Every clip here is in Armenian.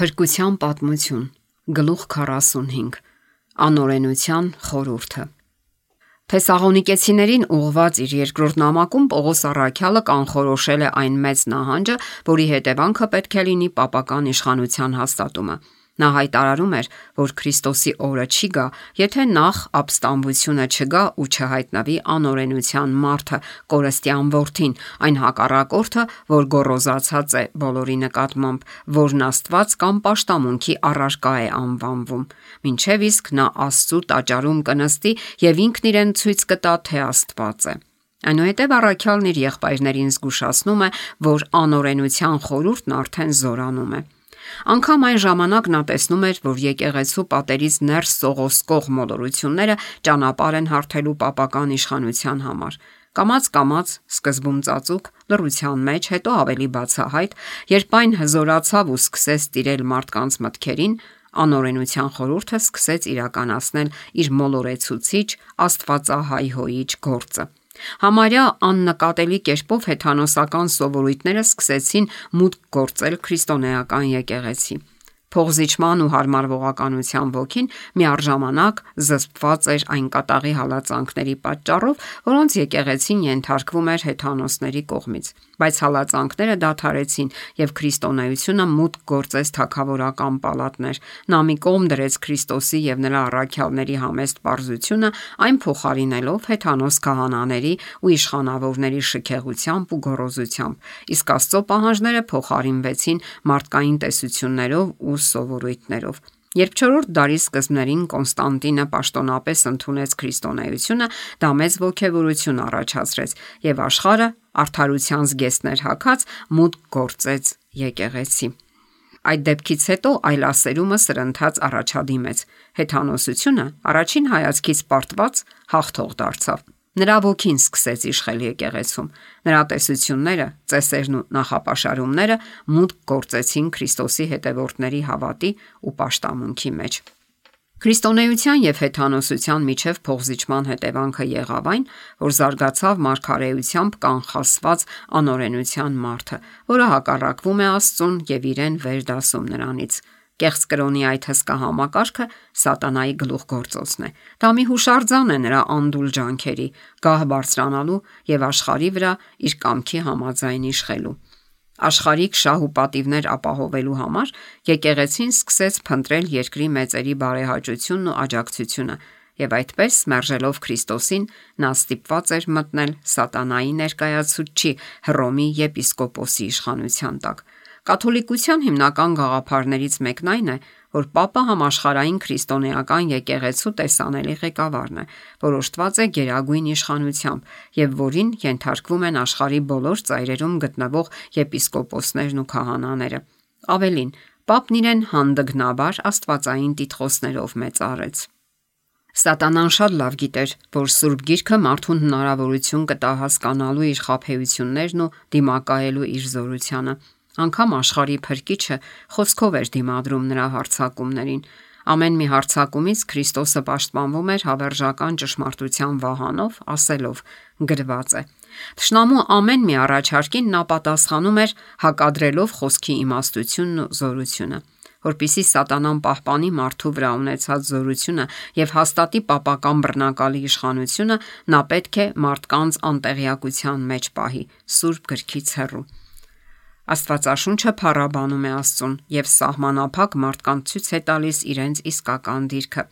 Փրկության պատմություն, գլուխ 45, անօրենության խորհուրդը։ Թեսաղոնիկեցիներին ուղղված իր երկրորդ նամակում Պողոս առաքյալը կանխորոշել է այն մեծ նահանջը, որի հետևանքը պետք է լինի պապական իշխանության հաստատումը։ Նա հայտարարում էր, որ Քրիստոսի օրը չի գա, եթե նախ ապստամբությունը չգա ու չհայտնվի անօրենության մարդը, կորստյան որդին, այն հակառակորդը, որ գոռոզացած է բոլորի նկատմամբ, որն Աստված կամ պաշտամունքի առարկա է անվանվում, մինչև իսկ նա Աստծու տաճարում կնստի եւ ինքն իրեն ցույց կտա, թե Աստված է։ Այնուհետև առաքյալն իր եղբայրներին զգուշացնում է, որ անօրենության խորհուրդն արդեն զորանում է։ Անկամ այն ժամանակ նա տեսնում էր, որ եկեղեցու պատերից ներս սողոսկող մոլորությունները ճանապարհ են հարթելու պապական իշխանության համար։ Կամաց-կամաց, սկզբում ծածուկ, լռության մեջ, հետո ավելի բացահայտ, երբ այն հզորացավ ու սկսեց տիրել մարդկանց մտքերին, անօրենության խորհուրդը սկսեց իրականացնել իր մոլորեցուցիչ, աստվածահայհոյիչ գործը։ Համարյա աննկատելի կերպով հեթանոսական սովորույթները սկսեցին մուտք գործել քրիստոնեական եկեղեցի։ Փողզիչման ու հարմարվողականության ոգին միառժամանակ զսպված էր այն կատաղի հալածանքների պատճառով, որոնց եկեղեցին ենթարկվում էր հեթանոսների կողմից։ Բայց հալածանքները դադարեցին եւ քրիստոնեությունը մուտք գործեց թագավորական պալատներ։ Նա մի կողմ դրեց Քրիստոսի եւ նրա առաքյալների համեստ պարզությունը, այն փոխարինելով հեթանոս քահանաների ու իշխանավորների շքեղությամբ ու գոռոզությամբ, իսկ Աստծո պահանջները փոխարինվեցին մարդկային տեսություններով ու սովորույթներով։ Երբ 4-րդ դարի սկզբներին Կոնստանտինը պաշտոնապես ընդունեց քրիստոնեությունը, դա մեծ ոգևորություն առաջացրեց եւ աշխարհը արդարության զգեստներ հագած մուտք գործեց եկեղեցի։ Այդ դեպքից հետո այլասերումը սրընթաց առաջադիմեց։ Հեթանոսությունը առաջին հայացքից պարտված հաղթող դարձավ։ Նրա ոգին սկսեց իշխել եկեղեցում։ Նրա տեսությունները, ծեսերն ու նախապաշարումները մուտք գործեցին Քրիստոսի հետևորդների հավատի ու պաշտամունքի մեջ։ Քրիստոնեության եւ հեթանոսության միջև փողզիչման հետևանքը եղավ այն, որ զարգացավ մարգարեությամբ կանխասված անօրենության մարդը, որը հակառակվում է Աստծուն եւ իրեն վերդասում նրանից։ Կեղծ կրոնի այդ հսկա համակարգը սատանայի գլուխգործոցն է։ Դա մի հուշարձան է նրա անդուլ ջանքերի, գահ բարձրանալու եւ աշխարհի վրա իր կամքի համաձայն իշխելու։ Աշխարհիկ շահ ու պատիվներ ապահովելու համար եկեղեցին սկսեց փնտրել երկրի մեծերի բարեհաճությունն ու աջակցությունը, եւ այդպես, մերժելով Քրիստոսին, նա ստիպված էր մտնել սատանայի ներկայացուցչի Հռոմի եպիսկոպոսի իշխանության տակ։ Կաթոլիկության հիմնական գաղափարներից մեկն այն է, որ Պապը համաշխարհային քրիստոնեական եկեղեցու տեսանելի ղեկավարն է, որոշտված է գերագույն իշխանությամբ եւ որին ենթարկվում են աշխարհի բոլոր ծայրերում գտնվող եպիսկոպոսներն ու քահանաները։ Ավելին, Պապն իրեն հանդգնաբար աստվածային տիտղոսներով մեծարեց։ Սատանան շատ լավ գիտեր, որ Սուրբ Գիրքը մարդուն հնարավորություն կտա հասկանալու իր խաբեություններն ու դիմակայելու իր զորությանը։ Անկամ աշխարհի փրկիչը խոսքով էր դիմադրում նրա հարձակումներին։ Ամեն մի հարձակումից Քրիստոսը պաշտպանվում էր հավերժական ճշմարտության վահանով, ասելով. գրված է։ Թշնամու ամեն մի առաջարկին նա պատասխանում էր հակադրելով խոսքի իմաստությունն ու զորությունը։ Որպեսզի սատանան պահպանի մարդու վրա ունեցած զորությունը եւ հաստատի պապական բռնակալի իշխանությունը, նա պետք է մարդկանց անտեղյակության մեջ պահի, Սուրբ Գրքից հեռու։ Աստվածաշունչը փառաբանում է Աստծուն եւ սահմանափակ մարդկանց ցույց է տալիս իրենց իսկական դիրքը։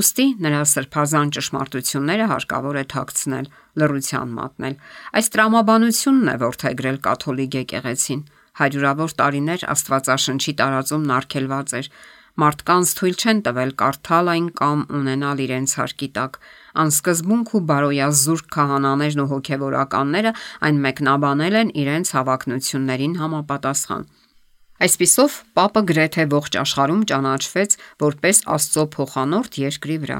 Ուստի նրա սրբազան ճշմարտությունները հարկավոր է թաքցնել, լռության մատնել։ Այս տրամաբանությունն է որդեգրել կաթոլիկ եկեղեցին։ Հարյուրավոր տարիներ Աստվածաշնչի տարածումն արգելված էր։ Մարդկանց թույլ չեն տվել կարդալ այն կամ ունենալ իրենց հարկի տակ։ Անսկզբունք ու բարոյազուրկ քահանաներն ու հոգևորականները այն մեկնաբանել են իրենց հավակնություններին համապատասխան։ Այսպիսով, Պապը գրեթե ողջ աշխարհում ճանաչվեց որպես Աստծո փոխանորդ երկրի վրա,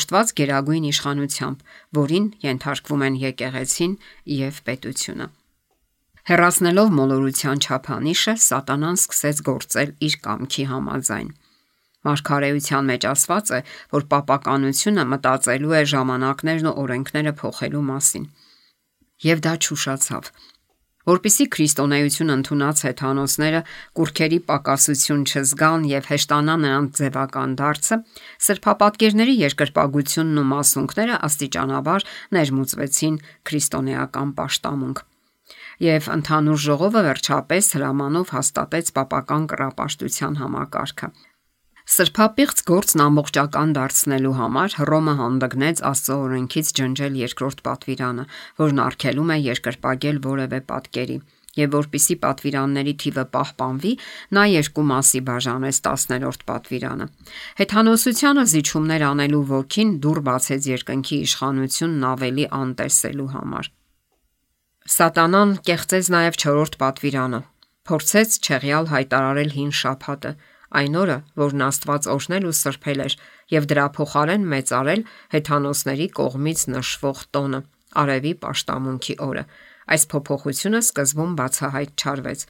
օժտված գերագույն իշխանությամբ, որին ենթարկվում են եկեղեցին եւ պետությունը։ Հեռացնելով մոլորության չափանիշը, սատանան սկսեց գործել իր կամքի համաձայն։ Մարգարեության մեջ ասված է, որ պապականությունը մտածելու է ժամանակներն ու օրենքները փոխելու մասին։ Եվ դա չուշացավ։ Որպեսզի քրիստոնեություն ընդունած հեթանոսները կուրքերի պակասություն չզգան եւ հեշտանա նրանց ձևական դարձը, սրբապատկերների երկրպագությունն ու մասունքները աստիճանաբար ներմուծվեցին քրիստոնեական պաշտամունք։ Եվ ընդհանուր ժողովը վերջապես հրամանով հաստատեց պապական կռապաշտության համակարգը։ Սրբապիղծ գործն ամբողջական դարձնելու համար Հռոմը հանդգնեց Աստծո օրենքից ջնջել երկրորդ պատվիրանը, որն արգելում է երկրպագել որևէ պատկերի, եւ որpիսի պատվիրանների թիվը պահպանվի, նա երկու մասի բաժանեց 10-րդ պատվիրանը։ Հեթանոսությանը զիջումներ անելու ոգին դուռ բացեց երկնքի իշխանությունն ավելի անտեսելու համար։ Սատանան կեղծեց նաև 4-րդ պատվիրանը, փորձեց չեղյալ հայտարարել հին շաբաթը, այն օրը, որն Աստված օրհնել ու սրբել էր, եւ դրա փոխարեն մեծարել հեթանոսների կողմից նշվող տոնը՝ արևի պաշտամունքի օրը։ Այս փոփոխությունը սկզբում բացահայտ չարվեց։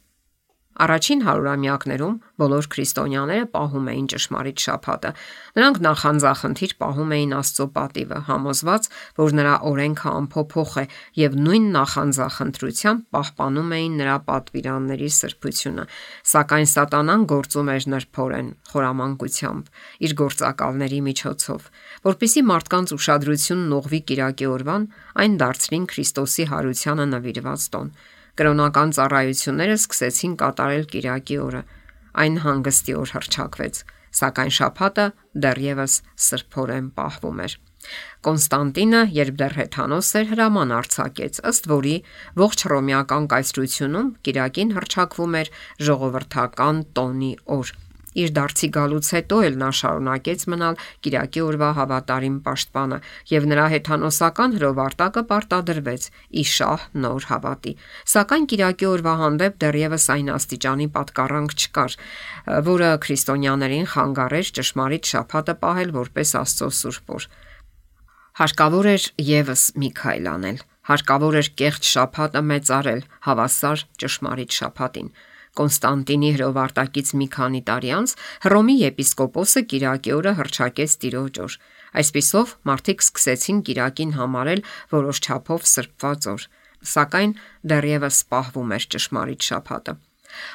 Առաջին հարյուրամյակներում բոլոր քրիստոնյաները պահում էին ճշմարիտ շաբաթը։ Նրանք նախանձախնդիր պահում էին Աստծո պատիվը, համոզված, որ նրա օրենքը անփոփոխ է, եւ նույն նախանձախնդրությամբ պահպանում էին նրա պատվիրանների սրբությունը։ Սակայն Սատանան գործում էր նրբորեն, խորամանկությամբ, իր գործակալների միջոցով, որpիսի մարդկանց ուշադրությունն ուղղվի կիրակի օրվան, այն դարձրին Քրիստոսի հարությանը նվիրված տոն։ Կրոնական ծառայությունները սկսեցին կատարել կիրակի օրը։ Այն հանգստի օր հռչակվեց, սակայն շաբաթը դեռևս սրբորեն պահվում էր։ Կոնստանտինը, երբ դեռ հեթանոս էր, հրաման արձակեց, ըստ որի ողջ հռոմեական կայսրությունում կիրակին հռչակվում էր ժողովրդական տոնի օր։ Իր դարձի գալուց հետո էլ նա շարունակեց մնալ կիրակի օրվա հավատարիմ պաշտպանը, եւ նրա հեթանոսական հրովարտակը պարտադրվեց ի շահ նոր հավատի։ Սակայն կիրակի օրվա հանդեպ դեռևս այն աստիճանի պատկառանք չկար, որը քրիստոնյաներին խանգարեր ճշմարիտ շաբաթը պահել որպես Աստծո սուրբ օր։ Հարկավոր էր եւս մի քայլ անել։ Հարկավոր էր կեղծ շաբաթը մեծարել հավասար ճշմարիտ շաբաթին։ Կոնստանտինի հրովարտակից մի քանի տարի անց Հռոմի եպիսկոպոսը կիրակի օրը հռչակեց Տիրոջ օր։ Այսպիսով մարդիկ սկսեցին կիրակին համարել որոշ չափով սրբված օր, սակայն դեռևս պահվում էր ճշմարիտ շաբաթը։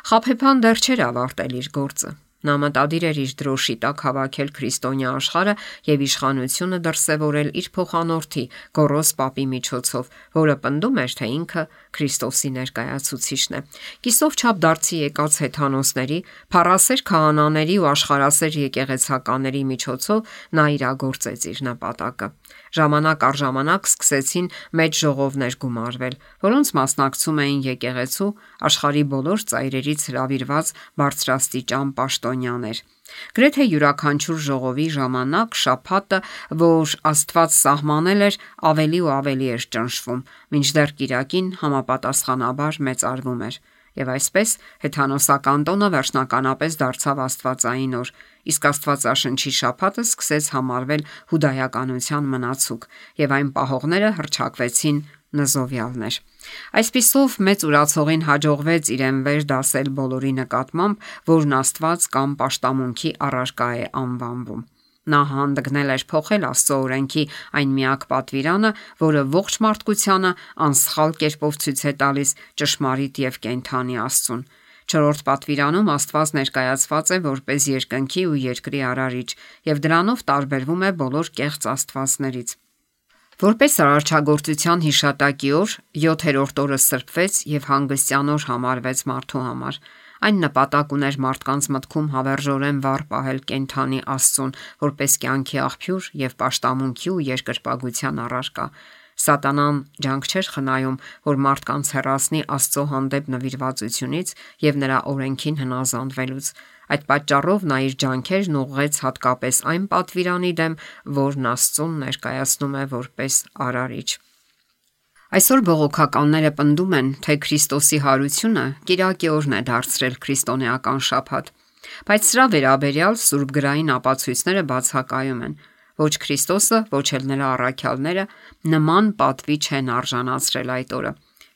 Խաբեբան դեռ չէր ավարտել իր գործը։ Նա մտադիր էր իր դրոշի տակ հավաքել քրիստոնյա աշխարհը եւ իշխանությունը դրսեւորել իր փոխանորդի Գոռոս Պապի միջոցով, որը պնդում էր, թե ինքը Քրիստոսի ներկայացուցիչն է։ Կիսով չափ դարձի եկած հեթանոսների, փառասեր քահանաների ու աշխարհասեր եկեղեցականների միջոցով նա իրագործեց իր նպատակը։ Ժամանակ առ ժամանակ սկսեցին մեծ ժողովներ գումարվել, որոնց մասնակցում էին եկեղեցու աշխարհի բոլոր ծայրերից հրավիրված բարձրաստիճան պաշտոնյաներ։ Գրեթե յուրաքանչյուր ժողովի ժամանակ շաբաթը, որ Աստված սահմանել էր, ավելի ու ավելի էր ճնշվում, մինչդեռ կիրակին համապատասխանաբար մեծարվում էր։ Եվ այսպես հեթանոսական տոնը վերջնականապես դարձավ աստվածային օր, իսկ Աստվածաշնչի շաբաթը սկսեց համարվել հուդայականության մնացուկ, եւ այն պահողները հռչակվեցին նզովյալներ։ Այսպիսով մեծ ուրացողին հաջողվեց իրեն վեր դասել բոլորի նկատմամբ, որն Աստված կամ պաշտամունքի առարկա է անվանվում։ Նա հանդգնել էր փոխել Աստծո օրենքի այն միակ պատվիրանը, որը ողջ մարդկությանը անսխալ կերպով ցույց է տալիս ճշմարիտ եւ կենդանի Աստծուն։ 4-րդ պատվիրանում Աստված ներկայացված է որպես երկնքի ու երկրի արարիչ, եւ դրանով տարբերվում է բոլոր կեղծ աստվածներից։ Որպես արարչագործության հիշատակի օր, 7-րդ օրը սրբվեց եւ հանգստյան օր համարվեց մարդու համար։ Այն նպատակ ուներ մարդկանց մտքում հավերժորեն վառ պահել կենդանի Աստծուն, որպես կյանքի աղբյուր եւ պաշտամունքի ու երկրպագության առարկա։ Սատանան ջանք չէր խնայում, որ մարդկանց հեռացնի Աստծո հանդեպ նվիրվածությունից եւ նրա օրենքին հնազանդվելուց։ Այդ պատճառով նա իր ջանքերն ուղղեց հատկապես այն պատվիրանի դեմ, որն Աստծուն ներկայացնում է որպես արարիչ։ Այսօր բողոքականները պնդում են, թե Քրիստոսի հարությունը կիրակի օրն է դարձրել քրիստոնեական շաբաթ, բայց սրա վերաբերյալ սուրբգրային ապացույցները բացակայում են։ Ոչ Քրիստոսը, ոչ էլ նրա առաքյալները նման պատվի չեն արժանացրել այդ օրը։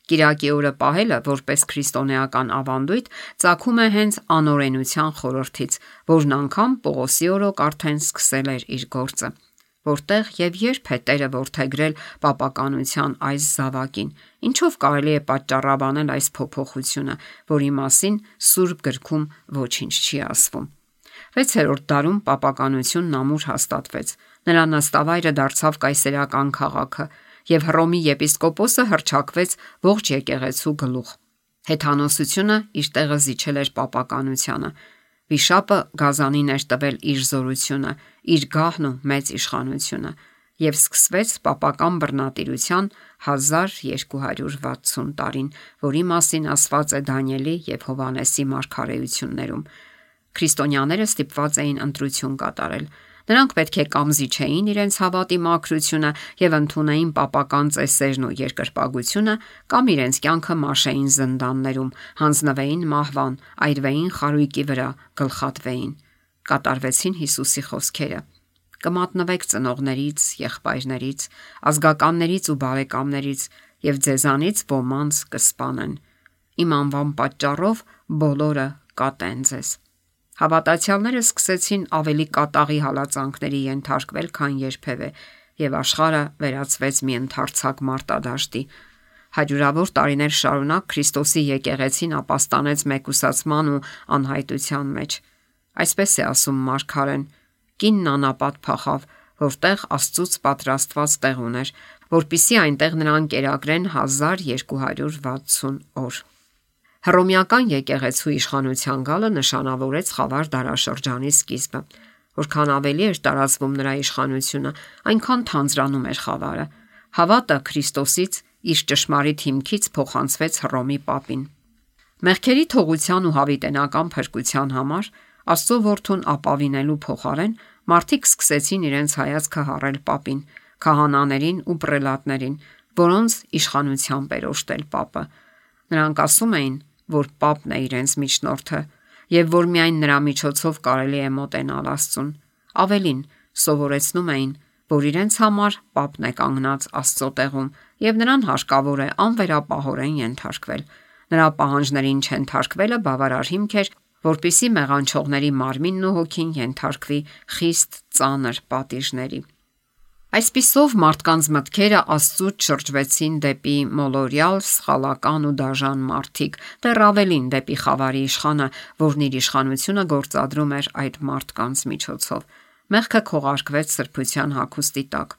Կիրակի օրը պահելը որպես քրիստոնեական ավանդույթ ծագում է հենց անօրենության խորհրդից, որն անգամ Պողոսի օրոք արդեն սկսել էր իր գործը։ որտեղ եւ երբ է Տերը որդեգրել պապականության այս զավակին, ինչով կարելի է պատճառաբանել այս փոփոխությունը, որի մասին Սուրբ գրքում ոչինչ չի ասվում։ 6-րդ դարում պապականությունն ամուր հաստատվեց։ Նրա նստավայրը դարձավ կայսերական քաղաքը եւ Հռոմի եպիսկոպոսը հռչակվեց ողջ եկեղեցու գլուխ։ Հեթանոսությունը իր տեղը զիջել էր պապականությանը։ Վիշապը գազանին էր տվել իր զորությունը, իր գահն ու մեծ իշխանությունը եւ սկսվեց պապական բռնատիրության 1260 տարին, որի մասին ասված է Դանիելի եւ Հովհաննեսի մարգարեություններում։ Քրիստոնյաները ստիպված էին ընտրություն կատարել։ Նրանք պետք է կամզիչեին իրենց հավատի մաքրությունը եւ ընդունեին պապական ծեսերն ու երկրպագությունը, կամ իրենց կյանքը մաշեին զնդաններում, հանձնվեին մահվան, այրվեին խարույկի վրա, գլխատվեին։ Կատարվեցին Հիսուսի խոսքերը. կմատնվեք ծնողներից, եղբայրներից, ազգականներից ու բարեկամներից եւ ձեզանից ոմանց կսպանեն։ Իմ անվան պատճառով բոլորը կատեն ձեզ։ Հավատացյալները սկսեցին ավելի կատաղի հալածանքների ենթարկվել, քան երբևէ, եւ աշխարհը վերածվեց մի ընդարձակ մարտադաշտի։ Հարյուրավոր տարիներ շարունակ Քրիստոսի եկեղեցին ապաստանեց մեկուսացման ու անհայտության մեջ։ Այսպես է ասում մարգարեն. կինն անապատ փախավ, որտեղ Աստծուց պատրաստված տեղ ուներ, որպիսի այնտեղ նրան կերակրեն 1260 օր։ Հռոմեական եկեղեցու իշխանության գալը նշանավորեց խավար դարաշրջանի սկիզբը։ Որքան ավելի էր տարածվում նրա իշխանությունը, այնքան թանձրանում էր խավարը։ Հավատը Քրիստոսից իր ճշմարիտ հիմքից փոխանցվեց Հռոմի պապին։ Մեղքերի թողության ու հավիտենական փրկության համար Աստծո որդուն ապավինելու փոխարեն մարդիկ սկսեցին իրենց հայացքը հառել պապին, քահանաներին ու պրելատներին, որոնց իշխանությամբ էր օժտել պապը։ Նրանք ասում էին, որ պապն է իրենց միջնորդը եւ որ միայն նրա միջոցով կարելի է մոտենալ Աստծուն։ Ավելին, սովորեցնում էին, որ իրենց համար պապն է կանգնած Աստծո տեղում եւ նրան հարկավոր է անվերապահորեն ենթարկվել։ Նրա պահանջներին չենթարկվելը բավարար հիմք էր, որպիսի մեղանչողների մարմինն ու հոգին ենթարկվի խիստ ծանր պատիժների։ Այսպիսով մարդկանց մտքերը Աստծուց շրջվեցին դեպի մոլորյալ, սխալական ու դաժան մարդիկ, դեռ ավելին դեպի խավարի իշխանը, որն իր իշխանությունը գործադրում էր այդ մարդկանց միջոցով։ Մեղքը քողարկվեց սրբության հագուստի տակ։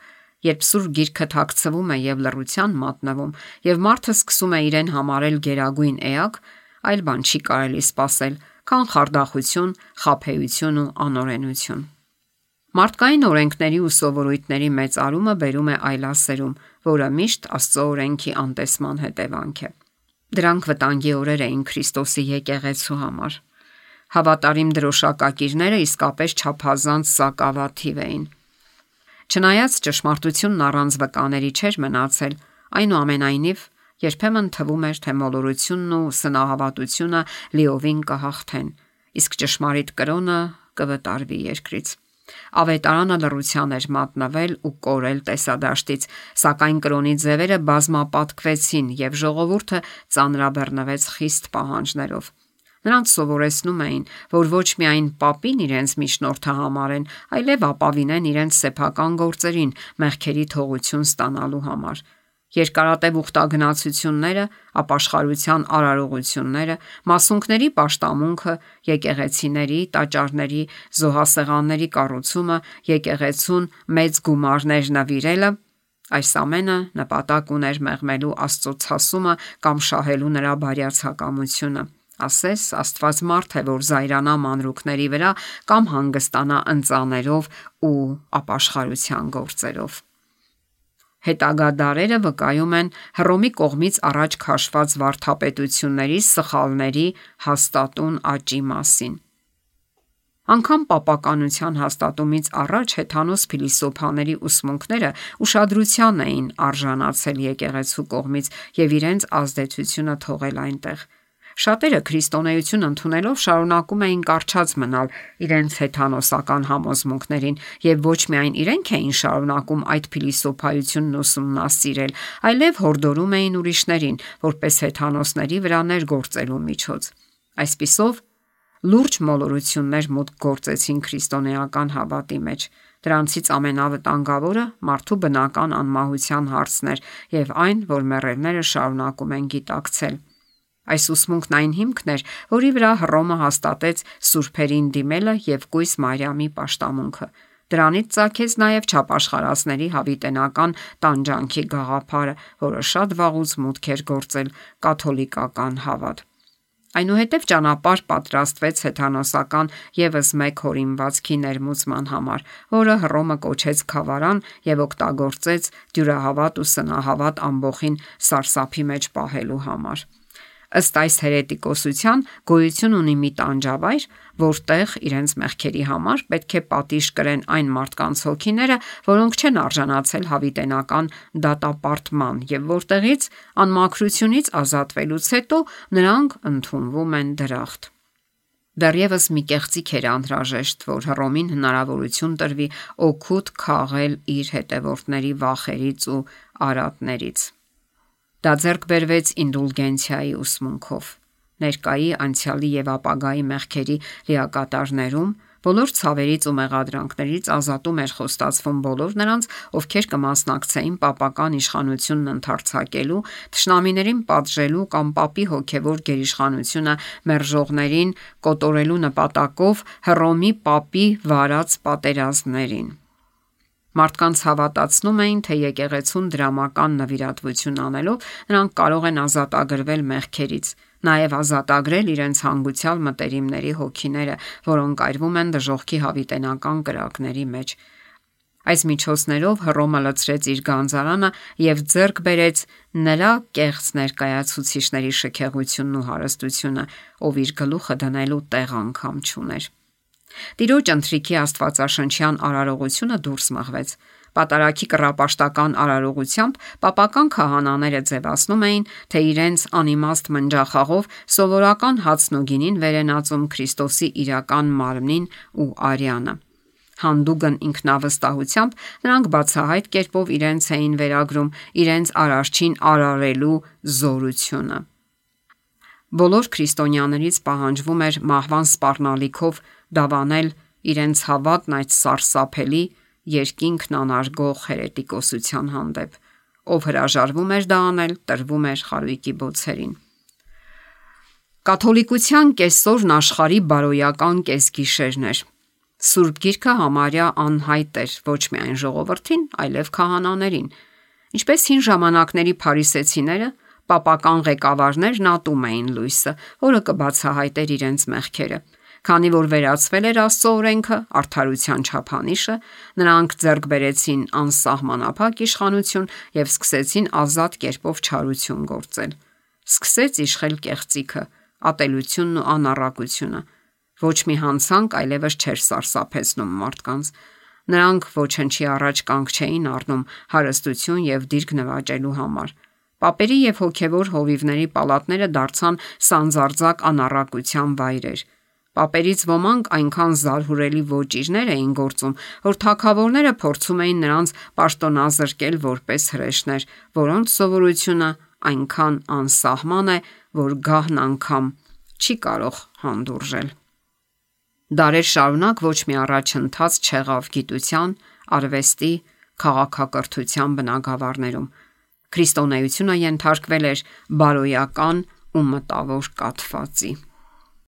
Երբ Սուրբ Գիրքը թաքցվում է եւ լռության մատնվում, եւ մարդը սկսում է իրեն համարել գերագույն էակ, այլ բան չի կարելի սпасել, քան խարդախություն, խաբեություն ու անօրենություն։ Մարդկային օրենքների ու սովորույթների մեծարումը բերում է այլասերում, որը միշտ Աստծո օրենքի անտեսման հետևանք է։ Դրանք վտանգի օրեր էին Քրիստոսի եկեղեցու համար։ Հավատարիմ դրոշակակիրները իսկապես չափազանց սակավաթիվ էին։ Չնայած ճշմարտությունն առանց վկաների չէր մնացել, այնուամենայնիվ երբեմն թվում էր, թե մոլորությունն ու սնահավատությունը լիովին կհաղթեն, իսկ ճշմարիտ կրոնը կվտարվի երկրից։ Ավետարանը լռության էր մատնվել ու կորել տեսադաշտից, սակայն կրոնի ձևերը բազմապատկվեցին եւ ժողովուրդը ծանրաբեռնվեց խիստ պահանջներով։ Նրանց սովորեցնում էին, որ ոչ միայն պապին իրենց միջնորդը համարեն, այլև ապավինեն իրենց սեփական գործերին մեղքերի թողություն ստանալու համար։ Երկարատև ուխտագնացությունները, ապաշխարության արարողությունները, մասունքների պաշտամունքը, եկեղեցիների, տաճարների, զոհասեղանների կառուցումը, եկեղեցուն մեծ գումարներ նվիրելը, այս ամենը նպատակ ուներ մեղմելու Աստծո ցասումը կամ շահելու նրա բարյացակամությունը։ Ասես Աստված մարդ է, որ զայրանա մանրուքների վրա կամ հանգստանա ընծաներով ու ապաշխարության գործերով։ Հետագա դարերը վկայում են Հռոմի կողմից առաջ քաշված վարդապետությունների սխալների հաստատուն աճի մասին։ Անկամ պապականության հաստատումից առաջ հեթանոս փիլիսոփաների ուսմունքները ուշադրության էին արժանացել եկեղեցու կողմից եւ իրենց ազդեցությունը թողել այնտեղ։ Շատերը քրիստոնեություն ընդունելով շարունակում էին կառչած մնալ իրենց հեթանոսական համոզմունքներին եւ ոչ միայն իրենք էին շարունակում այդ փիլիսոփայությունն ուսումնասիրել, այլև հորդորում էին ուրիշներին, որպես հեթանոսների վրա ներգործելու միջոց։ Այսպիսով Լուրջ մոլորություններ մուտք գործեցին քրիստոնեական հավատի մեջ։ Դրանցից ամենավտանգավորը մարդու բնական անմահության հարցն էր եւ այն, որ մեռելները շարունակում են գիտակցել։ Այս ուսմունքն այն հիմքն էր, որի վրա Հռոմը հաստատեց սուրբերին դիմելը եւ կույս Մարիամի պաշտամունքը։ Դրանից ծագեց նաև չափաշխարածների հավիտենական տանջանքի գաղափարը, որը շատ վաղուց մուտք էր գործել կաթոլիկական հավատ։ Այնուհետև ճանապարհ պատրաստվեց հեթանոսական եւս մեկ հորինվածքի ներմուծման համար, որը Հռոմը կոչեց Քավարան եւ օգտագործեց դյուրահավատ ու սնահավատ ամբոխին սարսափի մեջ պահելու համար։ Ըստ այս հերետիկոսության գոյություն ունի մի տանջավայր, որտեղ իրենց մեղքերի համար պետք է պատիժ կրեն այն մարդկանց հոգիները, որոնք չեն արժանացել հավիտենական դատապարտման եւ որտեղից անմաքրությունից ազատվելուց հետո նրանք ընդունվում են դրախտ։ Դեռևս մի կեղծիք էր անհրաժեշտ, որ Հռոմին հնարավորություն տրվի օգուտ քաղել իր հետևորդների վախերից ու արատներից։ Դա ձեռք բերվեց ինդուլգենցիայի ուսմունքով։ Ներկայի, անցյալի եւ ապագայի մեղքերի լիակատարներում բոլոր ցավերից ու մեղադրանքներից ազատում էր խոստացվում բոլոր նրանց, ովքեր կմասնակցեին պապական իշխանությունն ընդարձակելու, թշնամիներին պատժելու կամ պապի հոգևոր գերիշխանությունը մերժողներին կոտորելու նպատակով Հռոմի պապի վարած պատերազմներին։ Մարդկանց հավատացնում էին, թե եկեղեցուն դրամական նվիրատվություն անելով նրանք կարող են ազատագրվել մեղքերից, նաև ազատագրել իրենց հանգուցյալ մտերիմների հոգիները, որոնք այրվում են դժոխքի հավիտենական կրակների մեջ։ Այս միջոցներով Հռոմը լցրեց իր գանձարանը եւ ձեռք բերեց նրա կեղծ ներկայացուցիչների շքեղությունն ու հարստությունը, ով իր գլուխը դնելու տեղ անգամ չուներ։ Տիրոջ ընթրիքի աստվածաշնչյան արարողությունը դուրս մղվեց։ Պատարագի կռապաշտական արարողությամբ պապական քահանաները ձևացնում էին, թե իրենց անիմաստ մնջախաղով սովորական հացն ու գինին վերենածում Քրիստոսի իրական մարմնին ու արյանը։ Հանդուգն ինքնավստահությամբ նրանք բացահայտ կերպով իրենց էին վերագրում իրենց արարչին արարելու զորությունը։ Բոլոր քրիստոնյաներից պահանջվում էր մահվան սպառնալիքով դավանել իրենց հավատն այդ սարսափելի երկինքն անարգող հերետիկոսության հանդեպ, ով հրաժարվում էր դա անել, տրվում էր խարույկի բոցերին։ Կաթոլիկության կեսօրն աշխարհի բարոյական կեսգիշերն էր։ Սուրբ Գիրքը համարյա անհայտ էր ոչ միայն ժողովրդին, այլև քահանաներին։ Ինչպես հին ժամանակների փարիսեցիները, պապական ղեկավարներն ատում էին լույսը, որը կբացահայտեր իրենց մեղքերը։ Քանի որ վերացվել էր Աստծո օրենքը, արդարության չափանիշը, նրանք ձեռք բերեցին անսահմանափակ իշխանություն եւ սկսեցին ազատ կերպով չարություն գործել։ Սկսեց իշխել կեղծիքը, ատելությունն ու անառակությունը։ Ոչ մի հանցանք այլևս չէր սարսափեցնում մարդկանց։ Նրանք ոչնչի առաջ կանգ չէին առնում հարստություն եւ դիրք նվաճելու համար։ Պապերի եւ հոգևոր հովիվների պալատները դարձան սանձարձակ անառակության վայրեր։ Պապերից ոմանք այնքան զարհուրելի ոճիրներ էին գործում, որ թագավորները փորձում էին նրանց պաշտոնազրկել որպես հրեշներ, որոնց սովորությունը այնքան անսահման է, որ գահն անգամ չի կարող հանդուրժել։ Դարեր շարունակ ոչ մի առաջընթաց չեղավ գիտության, արվեստի, քաղաքակրթության բնագավառներում։ Քրիստոնեությունը ենթարկվել էր բարոյական ու մտավոր կաթվածի։